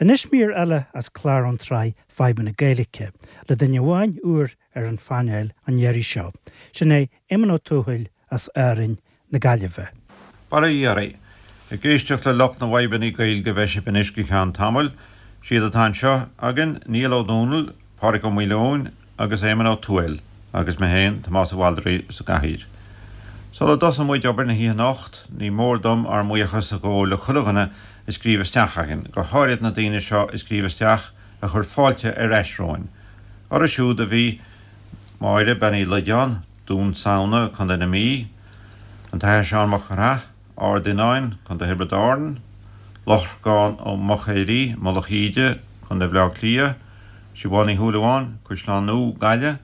Anois mír eile as clár ón tsraith Fadhbanna Gaeilge, le duine amháin úr ar an phainéal an iarraidh seo. Sin é Éamonn Ó Tuathail as Árainn na Gaillimhe. Bail ó Dhia oraibh. Ag éisteacht le lucht na bhfadhbanna Gaeilge a bheidh sibh anois go ceann tamaill. Siad atá anseo againn, Niall Ó Dónaill, Pádraig Ó Maoileoin agus Éamonn Ó Tuathail agus mé féin, Tomás Ó Bhaldraithe, sa gcathaoir. Sula dtosaíonn muid obair na hoíche anocht, ní mór dom ár mbuíochas a ghabháil le chuile dhuine a scríobh isteach againn, go háirid na daoine seo a scríobh isteach a chuir fáilte ar ais romhainn. Orthu siúd a bhí Máire Bean Uí Loideáin, Dún Samhna, Co. na Mí, an tAthair Seán Mac Craith, Ard Fhionáin, Co. Thiobraid Árann, Lorcán Ó Mochéirí, Mullach Íde, Co. Bhaile Átha Cliath, Siobhán Ní Shúilleabháin, Caisleán Nua, Gaillimh,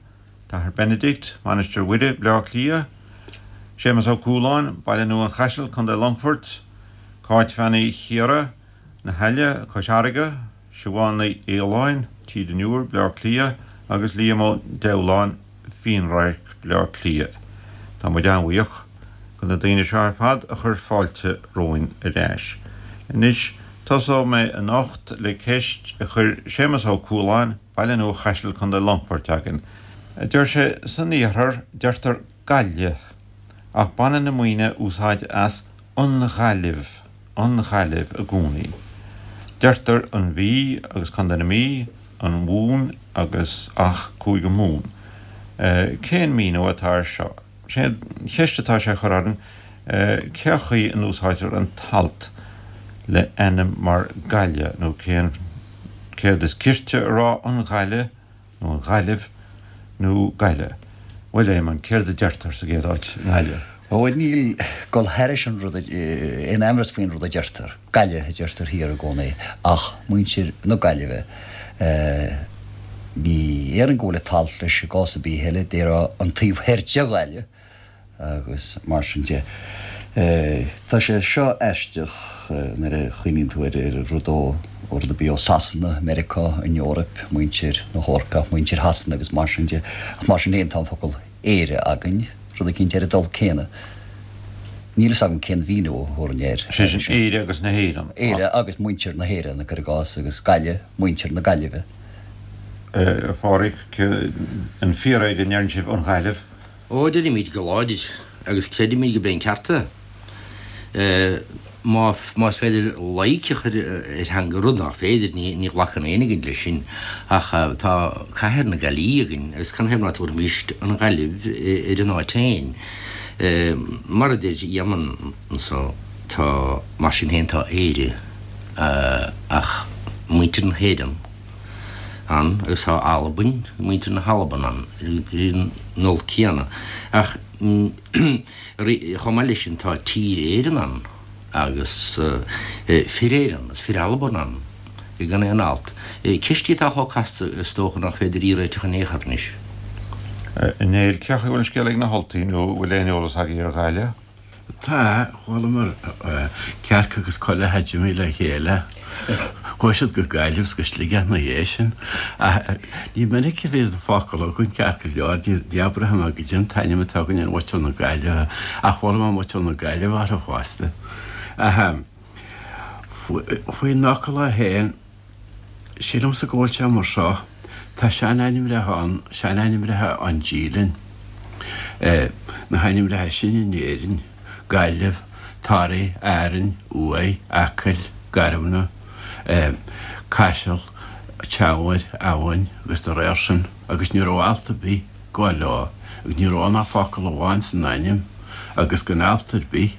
T-Athair Benedict, Mainistir Mhuire, Bleá Cliath, Séamus Ó Cualáin, Baile Nua an Chaisil, Co. Longfoirt, Cáit Bhean Uí Chiara, Na hAille, Cois Fharraige, Siobhán Ní Fhaoláin, Tír an Iúir, Bleá Cliath, agus Liam Ó Deighleáin, Fionnradharc, Bleá Cliath. Tá muid an-bhuíoch go na daoine seo ar fad a chuir fáilte romhainn ar ais. Anois, tosóidh mé anocht le ceist a chuir Séamus Ó Cualáin, Baile Nua Chaisil, Co. Longfoirt againn. Deir sé, San iarthar, deirtear Gaillimh, ach baineann na Muimhnigh úsáid as an Ghaillimh. an Ghaillimh i gcónaí. Deirtear an Mhí agus Contae na Mí, an Mhumhain agus ach Cúige Mumhan. Cén míniú atá air seo? Sé an cheist atá sé a chur orainn cé chaoi a n-úsáidtear an t-alt le ainm mar Gaillimh nó cén céard is cirte a rá an Ghaillimh nó an Ghaillimh, nó Gaillimh. Bhuel, Éamonn, céard a deirtear sa gcéad áit i nGaillimh? Ó, níl dul thairis an rud, aon amhras faoin rud a deirtear. Gaillimh a deirtear thiar i gcónaí, ach muintir na Gaillimhe, ní déarfainn go bhfuil an t-alt leis i gcás ar bith eile, déarfá an taobh thoir de Ghaillimh, agus mar sin de. Tá sé seo aisteach nuair a chuimhníonn tú ar an rud ó rud ar bith ó Sasana, Meiriceá, an Eoraip, muintir na hEorpa, muintir Shasana agus mar sin de. Ach mar sin féin tá an focal Éire againn, rud eicínt ar an dul céanna. Níl fhios agam cén mhíniú a thabharfainn air. Sé sin Éire agus na hÉireann. Éire agus muintir na hÉireann, cuir i gcás, agus Gaillimh, muintir na Gaillimhe. A Phádraig, an fíor é go ndeireann sibh an Ghaillimh? Ó, deirimid go láidir, agus creidimid gurb é an ceart é. Má, más féidir loighic a chur ar theanga, rud nach féidir, ní, ní ghlacann éinne againn leis sin, ach tá cathair na Gaillimhe againn, agus canathaobh ná tabharfaimíst an Ghaillimh ar an áit féin? Mar a deir Éamonn anso, tá, mar sin féin tá Éire, ach muintir na hÉireann, ann agus tá Albain, muintir na hAlban ann ar an ndul céanna. Ach chomh maith leis sin tá Tír Éireann ann agus Fir Éireann agus Fir Alban ann gan aon alt. Ceist í atá chomh casta is dócha nach féidir í a réiteach in aon chor anois. A Néill, cé chaoi a bhfuil an scéal ag na hUltaigh nó an bhfuil aon eolas agaibh ar Ghaillimh? Tá, chualamar cearc agus coileach a d'imigh le chéile. Chuaigh siad go Gaillimh is go Sligeach ina dhiaidh sin. Ach ní minic a bhíonn an focal againn ceart go leor, ní abraitheann mé goidé an t-ainm atá againn ar mhuintir na Gaillimhe, ach chuala mé muintir na Gaillimhe orthu fosta. Ach faoin fhocal é féin, Sílimse go bhfuil sé mar seo, tá sean-ainmreacha ann, sean-ainmreacha ón dílinn, na hainmreacha sin in Éirinn, Gaillimh, Toraigh, Árainn, Uaigh, Acaill, Garmna, Caiseal, Teamhair, Eamhain agus dá réir sin, agus ní raibh alt ar bith ag gabháil leo, agus ní raibh ann ach focal amháin san ainm agus gan alt ar bith.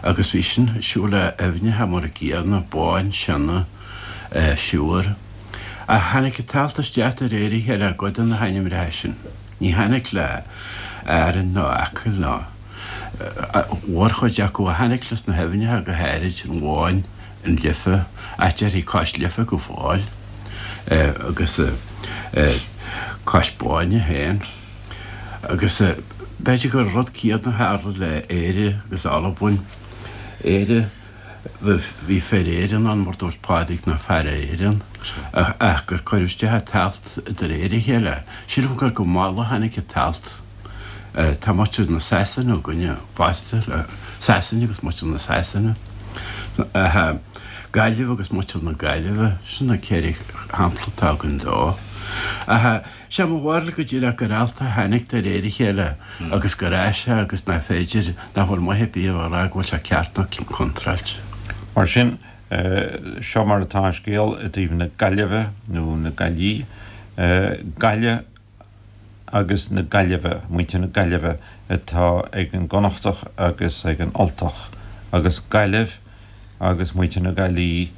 Agus bhí sin ag siúl le aibhneacha mar an gcéanna, Bóinn, Sionna, Siúr. Ach tháinig an t-alt isteach de réir a chéile i gcuid de na hainmreacha sin. Ní tháinig le Árainn ná Acaill ná mhórchuid acu ach tháinig leis na haibhneacha go háirid, an Bhóinn, an Life, ach déarfaí Cois Life go fóill agus Cois Bóinne féin. Agus b'fhéidir gur rud céanna a tharla le Éire agus Albain. Éire, bhí fir Éireann ann, mar dúirt Pádraig, ná fear Éireann, ach gur cuireadh isteach an t-alt de réir a chéile. Sílim gur go mall a tháinig an t-alt. Tá muintir na Sasana againne fosta, le Sasain agus muintir na Sasana. Gaillimh agus muintir na Gaillimhe, sin na 4 shampla atá againn dó. Ach sé mo bharúil go díreach gur alt a tháinig de réir a chéile agus gur fhás sé agus nach féidir, nach bhfuil maith ar bith a rá go bhfuil sé ceart nó contráilte. Mar sin, seo mar atá an scéal i dtaobh na Gaillimhe nó na Gaillí, Gaille agus na Gaillimhe, muintir na Gaillimhe atá ag an gConnachtach agus ag an Ultach, agus Gaillimh agus muintir na Gaillí,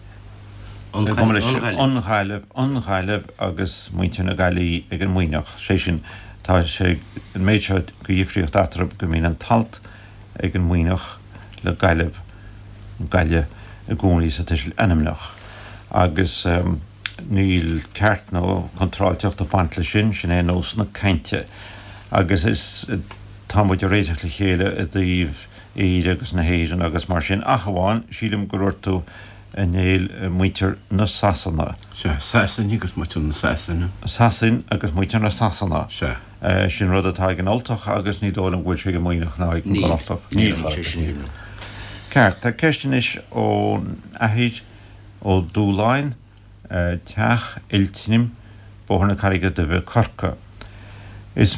an Ghaillimh, an Ghaillimh agus muintir na Gaillí ag an Muimhneach. Sé sin, tá sé an méid seo de dhifríocht eatarthu go mbíonn an t-alt ag an Muimhneach le Gaillimh, Gaille, i gcónaí sa tuiseal ainmneach. Agus níl ceart nó contráilteacht ag baint leis sin, sin é nós na cainte. Agus is, tá muid ag réiteach le chéile i dtaobh Éire agus na hÉireann agus mar sin, ach amháin, sílim gur dhúirt tú, a Néill, muintir na Sasana. Sea, Sasain agus muintir na Sasana. Sasain agus muintir na Sasana. Sea. Sin rud atá ag an Ultach agus ní dóigh liom go bhfuil sé ag an Muimhneach ná ag an gConnachtach. Níl, níl sé sin. Ceart, tá ceist anois ón Athair Ó Dúláin, Teach Oiltnim, Bóthar na Carraige Duibhe, Corcaigh. Is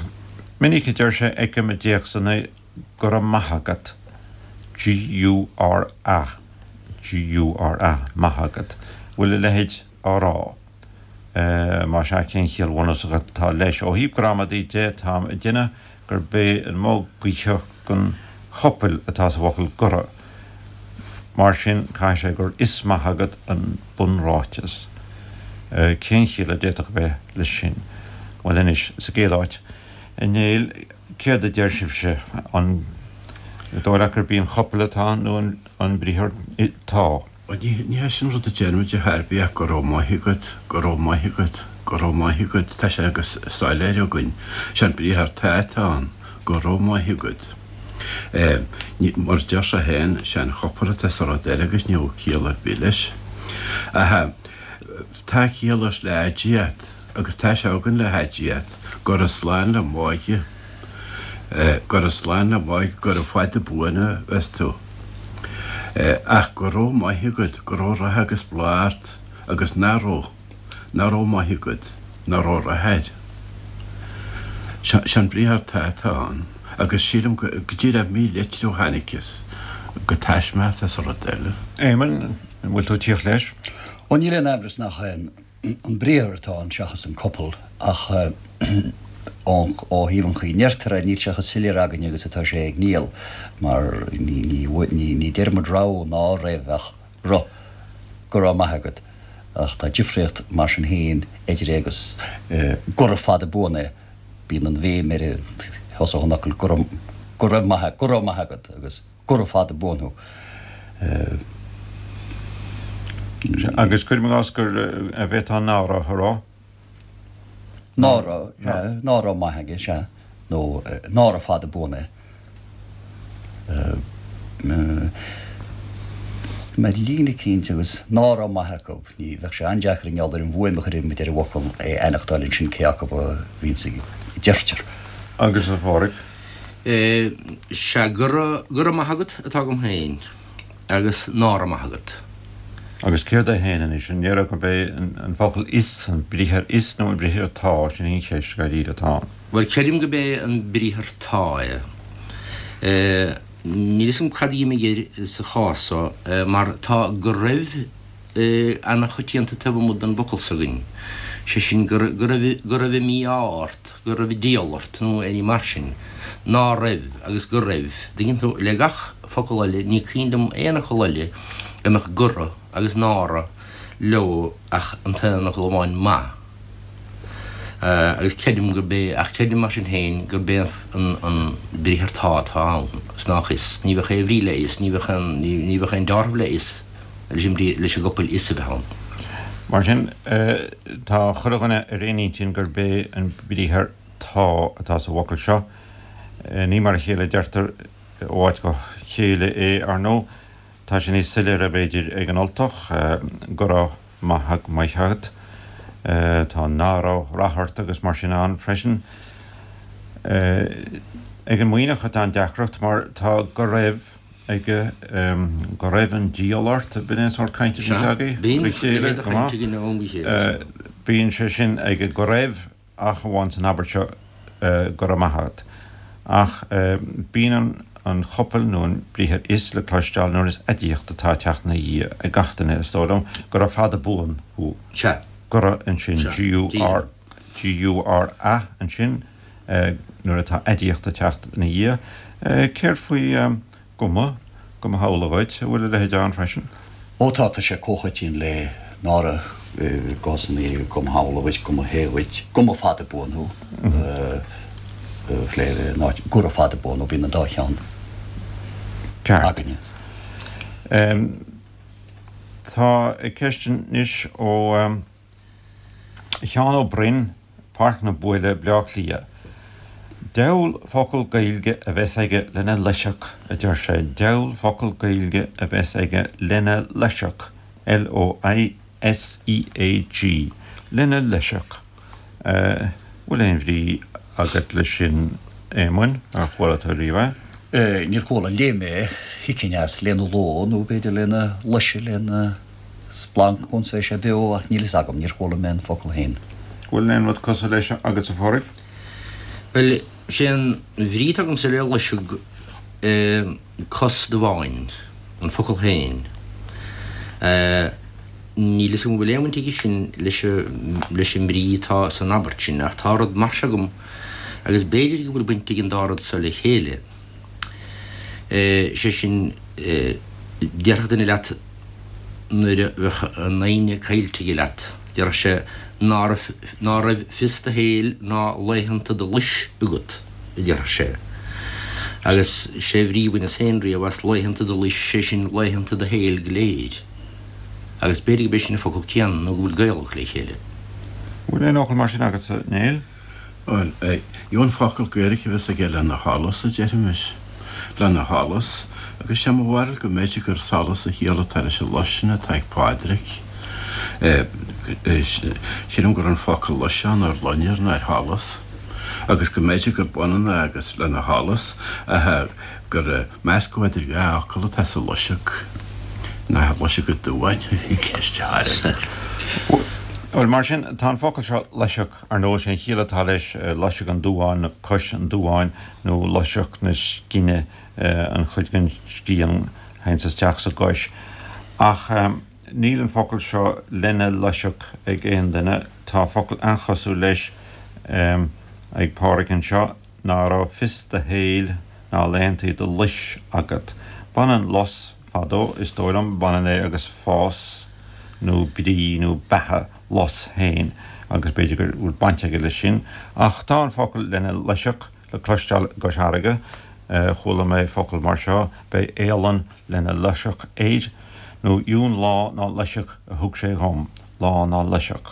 minic a deir sé, fheicim i dtéacsanna go raibh maith agat, G-U-R-A, G-U-R-A, maith agat. Bhfuil a leithéid á rá? Más ea, cén chiall bhunúsach atá leis? Ó thaobh gramadaí de, táim ag déanamh gurb é an modh guítheach den chopail atá sa bhfocal gura. Mar sin, caithfidh sé gur is maith agat an bunráiteas. Cén chiall a d'fhéadfadh a bheith leis sin? Bhuel anois, sa gcéad áit, a Néill, céard a deir sibhse? An dóigh leat gurb í an chopail atá ann nó an briathar tá? Bhuel, ní hé sin rud a deirimid ar chor ar bith ach go raibh maith agat, go raibh maith agat, go raibh maith agat, tá sé go soiléir againn. Sé an briathar tá atá ann, go raibh maith agat. Mar a deir sé féin, sé an chopail atá sa rud eile agus níl ciall ar bith leis. Ach tá ciall leis le haidiacht agus tá sé againn le haidiacht, gura slán le Máire. Gura slán le Máire, gura fada buan a bheas tú. Ach go raibh maith agat, go raibh rath agus bláth ort, agus nach raibh, nach raibh maith agat, nach raibh rath air. Sé an briathar tá atá ann, agus sílim go díreach mílitriú a tháinig as, go taisme atá sa rud eile. Éamonn, an bhfuil tú ag tíocht leis? Ó níl aon amhras nach é an briathar atá ann seachas an copail ach ó thaobh an chaoi a ndeirtear é níl sé chomh soiléir againne agus atá sé ag Niall mar ní deir muid raibh ná raibh ach ru, go raibh maith agat ach tá difríocht mar sin féin idir é agus gura fada buan é, bíonn an bhéim ar thosach an fhocail go raibh, go raibh maith, go raibh maith agat agus. Gura fada buan thú. Agus cuirim i gcás gur bhféadfá ná raibh a rá. Ná raibh, sea, ná raibh maith aige, sea, nó nára fada buan é. Mar líne eicínt agus ná raibh maith acu, ní bheadh sé an-deacair i ngeall ar an bhfuaim a chuireann muid ar an bhfocal é a aithneachtáil ansin cé acu a bhíonns a deirtear. Agus a Pháraic? Sea, go raibh, go raibh maith agat atá agam féin, agus ná raibh maith agat. Agus céard é féin anois? An ndéarfá gurb é an focal is, an briathar is nó an briathar tá? Sin í an cheist dháiríre atá ann. Bhuel, creidim gurb é an briathar tá é. Níl fhios agam cad a d'imigh air sa chás so, mar tá go raibh ana-choitianta taobh amuigh den bhfocal s'againn, sé sin, go raibh, go raibh an mí-ádh ort. go raibh an diabhal ort nó aon ní mar sin, ná raibh agus go raibh, dtuigeann tú, le gach focal eile, ní cuimhin liom aon fhocal eile a mbeadh gura agus ná raibh leo ach an t-aon fhocal amháin maith. Agus creidim gurb é, ach creidim mar sin féin gurb é an an briathar tá atá ann, is nách is, ní bheadh aon bhrí le is, ní bheadh aon, ní bheadh aon dealramh le is leis an bhrí, leis an gcopail is a bheith ann. Mar sin, tá chuile dhuine ar aon intinn gurb é an briathar tá atá sa bhfocal seo. Ní mar a chéile a deirtear ó áit go chéile é, ar ndóigh. Tá sé níos soiléire, b'fhéidir, ag an Ultach, go raibh maith maith agat. Tá ná raibh rath ort agus mar sin ann freisin. Ag an Muimhneach atá an deacracht, mar tá go raibh. aige go raibh an diabhal ort, b'in é an sórt cainte a bhíonns agaibh le chéile, go maith. Bíonn sé sin aige go raibh ach amháin san abairt seo go raibh maith agat. Ach bíonn an chopail nó an briathar is le cloisteáil nuair is aidiacht atá ag teacht ina dhiaidh ag gach duine, is dóigh liom, gura fada buan thú. Sea. Gura ansin, G-U-R, G-U-R-A ansin nuair atá aidiacht ag teacht ina dhiaidh. Céard faoi Go mba, go mba shamhla dhuit, an bhfuil a leithéid ann freisin? Ó tá, tá sé comhchoiteann le nára i gcásanna go mba shamhla dhuit, go mba hé dhuit, go mba fada buan thú, ná gura fada buan thú, bíonn an dá cheann againne. Tá ceist anois ó. Sheán Ó Broin, Páirc na Buaile, Bleá Cliath. Diabhal focal Gaeilge a bheas aige lena loiseac, a deir sé, diabhal focal Gaeilge a bheas aige lena loiseac, L-O-I-S-E-A-G, lena loiseac. Bhfuil aon bhrí agat leis sin, Éamoinn? Ar chuala tú riamh é? Níor chuala, léigh mé é, thuigfinn as lena ló nó b'fhéidir lena loise, lena. splanc ionns bheidh sé beo ach níl fhios agam, níor chuala mé an focal féin. Bhfuil aon rud cosúil leis agatsa a Phádraig? Bhuel, sé an bhrí atá agamsa le loiseag cos damháin, an focal féin. Níl fhios agam an bhfuil aon bhaint aige sin leis leis an mbrí atá san abairt sin ach tá rud mar seo agam agus b'fhéidir go bhfuil baint ag an dá rud so le chéile. Sé sin, déarfadh duine leat nuair a bheadh an fhoighne caillte aige leat, déarfadh sé ná raibh, ná raibh fios do shaoil ná laethanta do lois agat, a déarfadh sé. Agus sé an bhrí a bhaineas féin riamh as laethanta do lois, sé sin laethanta do shaoil go léir. Agus b'fhéidir gurb é sin an focal céanna nó go bhfuil gaol acu le chéile. Bhfuil aon fhocal mar sin agatsa, Néill? Bhuel, gheobhainn focal Gaeilge a bheas aige lena sholas, a déarfaimis. Lena sholas. Agus sé mo bharúil go mb'fhéidir gur solas an chiall atá leis an lois sin atá ag Pádraig. Sílim go raibh an focal lois ann ar loinnir ná ar sholas. Agus go mb'fhéidir gurb ionann é agus lena sholas, ach gur meascadh idir dhá fhocal atá sa loiseag. Nach loiseag an damháin a bhí i gceist a Phádraig. Bhuel, mar sin, tá an focal seo loiseag. Ar ndóigh, sé an chiall atá leis loiseag an duáin nó cois an duáin nó loiseag na scine, an chuid den scian a théanns isteach sa gcois. Ach níl an focal seo lena loiseag ag aon duine. Tá focal an-chosúil leis ag Pádraig anseo, ná raibh fios do shaoil ná laethantaí do lois agat. Baineann lus fadó, is dóigh liom, baineann é agus fás nó brí nó beatha. lus féin agus b'fhéidir go bhfuil baint aige leis sin. Ach tá an focal lena loiseac le cloisteáil i gCois Fharraige. Chuala mé focal mar seo, beidh éalann lena loiseac air, nó dheamhan lá ná loiseac a thug sé dhom, lá ná loiseac.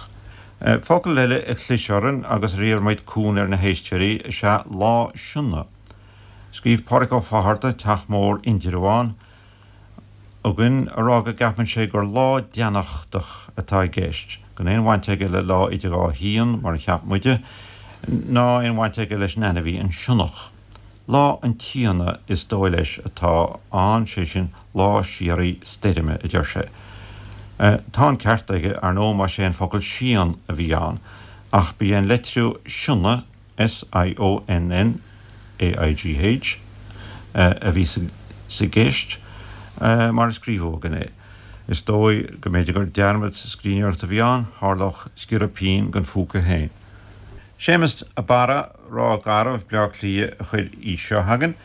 Focal eile a chlis orainn agus ar iarr muid cúnamh ar na héisteoirí is ea lá sionna. Scríobh Pádraig Ó Fátharta, Teach Mór, Indreabhán, chugainn a rá go gceapann sé gur lá deannachtach atá i gceist, gan aon bhaint aige le lá idir dhá shíon, mar a cheap muide, ná aon bhaint aige leis an ainmhí, an sionnach. Lá an tSíona is dóigh leis atá ann, sé sin, lá síoraí stoirme, a deir sé. Tá an ceart aige, ar ndóigh, más é an focal síon a bhí ann, ach ba é an leitriú sionna, S-I-O-N-N-A-I-G-H, a bhí sa gceist, mar a scríobhadh againn é. Is dóigh go mb'fhéidir gur dearmad sa scríbhneoireacht a bhí ann, tharlódh sciorradh pinn den phúca féin. Séamus a' Barra, Ráth Garbh, Bleá Cliath, a chuir í seo chugainn.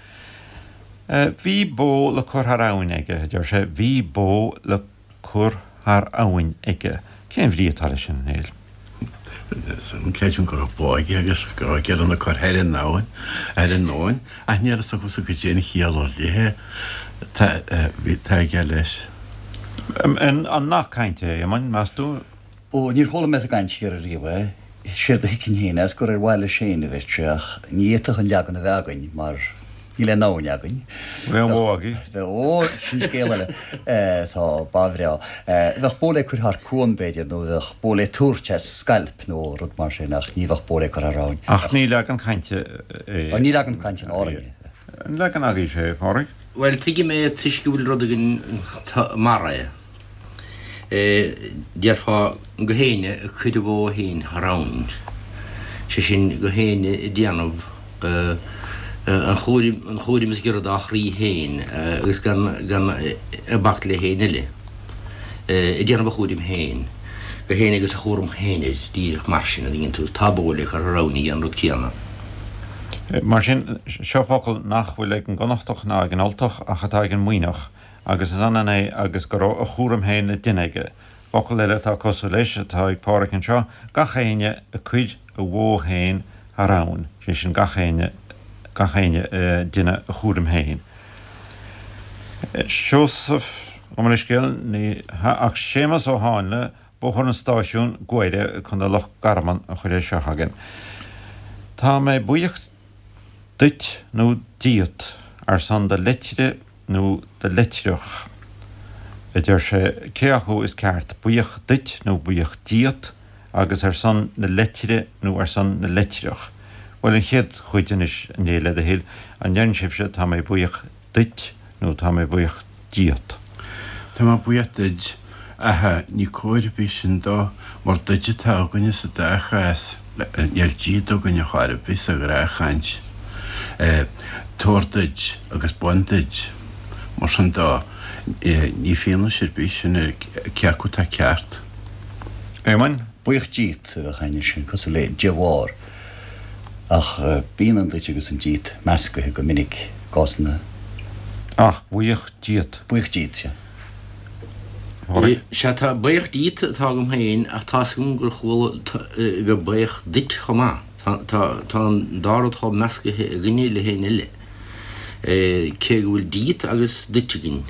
Bhí bó le cur thar abhainn aige, a deir sé, bhí bó le cur thar abhainn aige. Cén bhrí atá leis sin, a Néill? Creidim go raibh bó aige agus go raibh aige lena cur thar an abhainn, thar an abhainn, ach níl a fhios agamsa goidé an chiall ar leith atá aige leis. An nath cainte é, a Éamoinn, meas tú? Ó, níor chuala mé sa gcaint thiar ariamh é. Séard a thuigfinn féin as gur ar mhaithe leis féin a bheadh sé ach ní fhéadfadh an leagan a bheith againn mar níl aon abhainn againn. Bheadh aon bhó agaibh? Bheadh, ó, sin scéal eile. Tá ba bhreá. Bheadh bó le cur thar cuan, b'fhéidir, nó bheadh bó le tabhairt as scailp nó rud mar sin ach ní bheadh bó le cur thar abhainn. Ach ní leagan cainte é. Ní leagan cainte in Árainn é. An leagan agaibhse é, a Phádraig? Bhuel, tuigim é toisc go bhfuil rud againn mar é. Déarfá gach éinne ag cur a bhó féin thar abhainn, sé sin gach éinne ag déanamh an chúraim, an chúraim is giorra dá chroí féin agus gan, gan ag bac le héinne eile, ag déanamh a chúraim féin, gach éinne agus a chúram féin air, díreach mar sin, an dtuigeann tú, tá bó le cur thar abhainn aige, an rud céanna. Mar sin, seo focal nach bhfuil ag an gConnachtach ná ag an Ultach ach atá ag an Muimhneach, agus is ionann é agus go raibh a chúram féin le déanamh aige. Focal eile atá cosúil leis atá ag Páraic anseo, gach éinne ag cur a bhó féin thar abhainn, sé sin gach éinne, gach éinne ag déanamh a chúraim féin. Seosamh, gabh mo leithscéal, ní hea ach Séamus Ó Háinle, Bóthar an Stáisiúin, Guaire, Co. Loch Garman a chuir é seo chugainn. Tá mé buíoch duit nó díot ar son do leitre nó do leitreach, a deir sé, cé acu is ceart, buíoch duit nó buíoch díot, agus ar son na leitre nó ar son na leitreach? Bhuel, an chéad chuid anois, a Néill, le do thoil, an ndeireann sibhse tá mé buíoch duit nó tá mé buíoch díot? Tá mé buíoch duid, ach ní cóir ar bith sin dó, mar duid atá againne sa dá chás, níl díot againne chor ar bith sa ghnáthchaint. Tabhair duid agus bain duid. Mar sin dó, ní fianaise ar bith sin ar cé acu atá ceart. Éamoinn? Buíoch díot a bheadh againne, sin cosúil le de bharr. Ach bíonn an duit agus an díot meascaithe go minic i gcásanna. Ach buíoch díot. Buíoch díot, sea. Sea, tá buíoch díot atá agam féin ach tá's agam gur chuala bheith buíoch duit chomh maith. Tá, tá, tá an dá rud chomh meascaithe againne le héinne eile. Cé go bhfuil díot agus duit againn,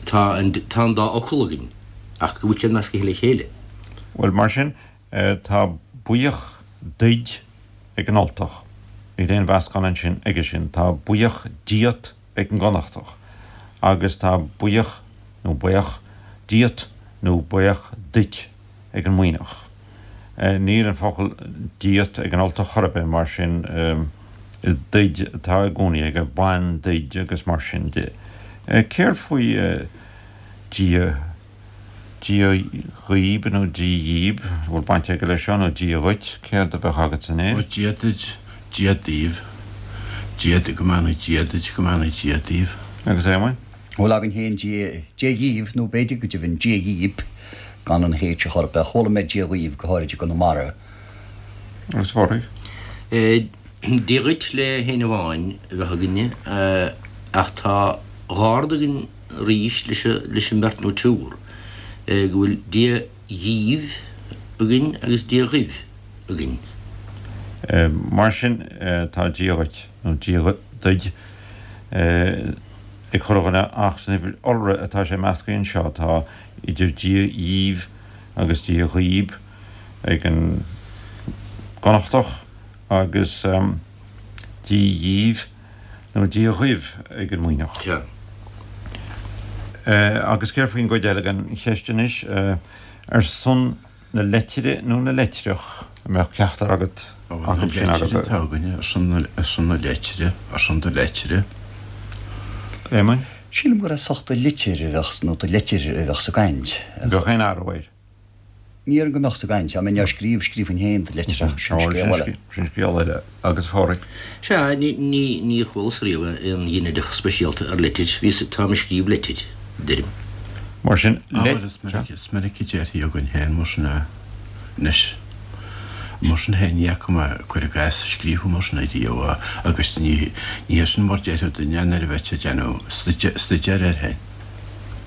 tá an, tá an dá fhocal againn ach go bhfuil siad meascaithe le chéile. Bhuel, mar sin, Tá buíoch duid ag an Ultach. Níl aon mheascán ansin aige sin. Tá buíoch díot ag an gConnachtach. Agus tá buíoch, nó baoch, díot nó baoch duit ag an Muimhneach. Níl an focal díot ag an Ultach chor ar bith, mar sin is duid atá i gcónaí aige, bain duid agus mar sin de. Céard faoi Dia? Dia dhaoib nó Dia dhíb, an bhfuil baint aige leis seo, nó Dia dhuit, céard a bheadh agatsa Ó Dia duit, Dia daoibh, Dia duit, go mbeannaí Dia duit, go mbeannaí Dia daoibh. Agus Éamoinn? Bhuel againn féin Dia, Dia dhíbh, nó b'fhéidir go deimhin Dia dhíb, gan an H a chur ach chuala mé Dia dhaoibh, go háirid i gConamara. Agus a Phádraig? Dia dhuit le héinne amháin a bheadh againne, ach tá dhá rud againn arís leis an mbeirt nó triúr, go bhfuil Dia dhíbh againn agus Dia dhaoibh againn. Mar sin, tá Dia dhuit, nó Dia duid, ag chuile dhuine ach san uimhir iolra atá sé meascaithe anseo. Tá idir Dia dhíbh agus Dia dhaoib ag an gConnachtach agus Dia dhíbh nó Dia dhaoibh ag an Muimhneach. Sea. Agus céard faoin gcuid eile den cheist anois? Ar son na leitire nó na leitreach a mbeadh ceachtar agat acu sin agat? Na leitire atá againne, ar son na, ar son na leitire, ar son do leitire. Éamoinn? Sílim gur ar son do litir a bheadh, nó do leitir a bheadh sa gcaint. Bheadh aon athrú air? Ní déarfainn go mbeadh sa gcaint. Dá mbeinn á scríobh, scríobhfainn féin do leitreach, sin scéal eile. Sin scéal eile. Agus a Phádraig? Sea, ní, níor chualas riamh aon ghinideach speisialta ar leitir. Bhíos, táim ag scríobh leitir, deirim. Mar sin, Ah, bhuel, is minic, is minic a déarfaí againn féin mar sin é. Anois, mar sin féin, ní fhaca mé, cuir i gcás, scríofa mar sin ariamh agus ní, ní hé sin mar déarfadh duine é nuair a bheadh sé ag déanamh staidéir air féin.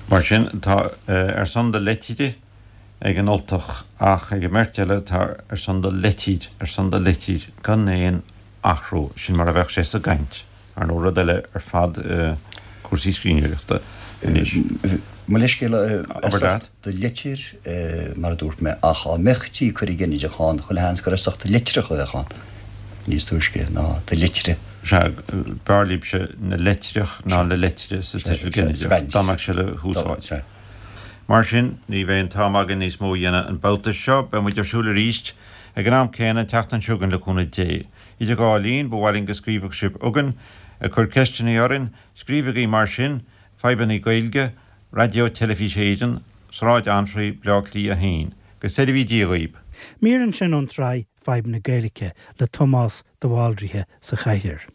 Mar sin, tá ar son do leitire ag an Ultach ach ag an mbeirt eile tá ar son do leitir, ar son do leitir, gan aon athrú. Sin mar a bheadh sé sa gcaint. Ar ndóigh, rud eile ar fad cúrsaí scríbhneoireachta anois. Mo leithscéal, ar son do leitir, mar a dúirt mé, ach dá mbeadh tí ag cur an ghinideach ann, chuile sheans gur ar son do leitreach a bheadh ann níos túisce ná do leitire. Sea, b'fhearr libhse na leitreach ná na leitire sa tuiseal ginideach, dá mbeadh sé le húsáid. Mar sin, ní bheidh an t-am againn níos mó a dhéanamh an babhta seo. Beidh muid ar siúl arís ag an am céanna an tseachtain seo chugainn le cúnamh Dé. Idir dhá linn, ba mhaith linn go scríobhfadh sibh chugainn, ag cur ceisteanna orainn. Scríobhaigí mar sin, Fadhbanna Gaeilge, Raidió Teilifís Éireann, Sráid Antraí, Bleá Cliath 1. Go seirbhí Dia dhaoib. Mír ansin ón tsraith Fadhb na Gaeilge le Tomás de Bhaldraithe sa chathaoir.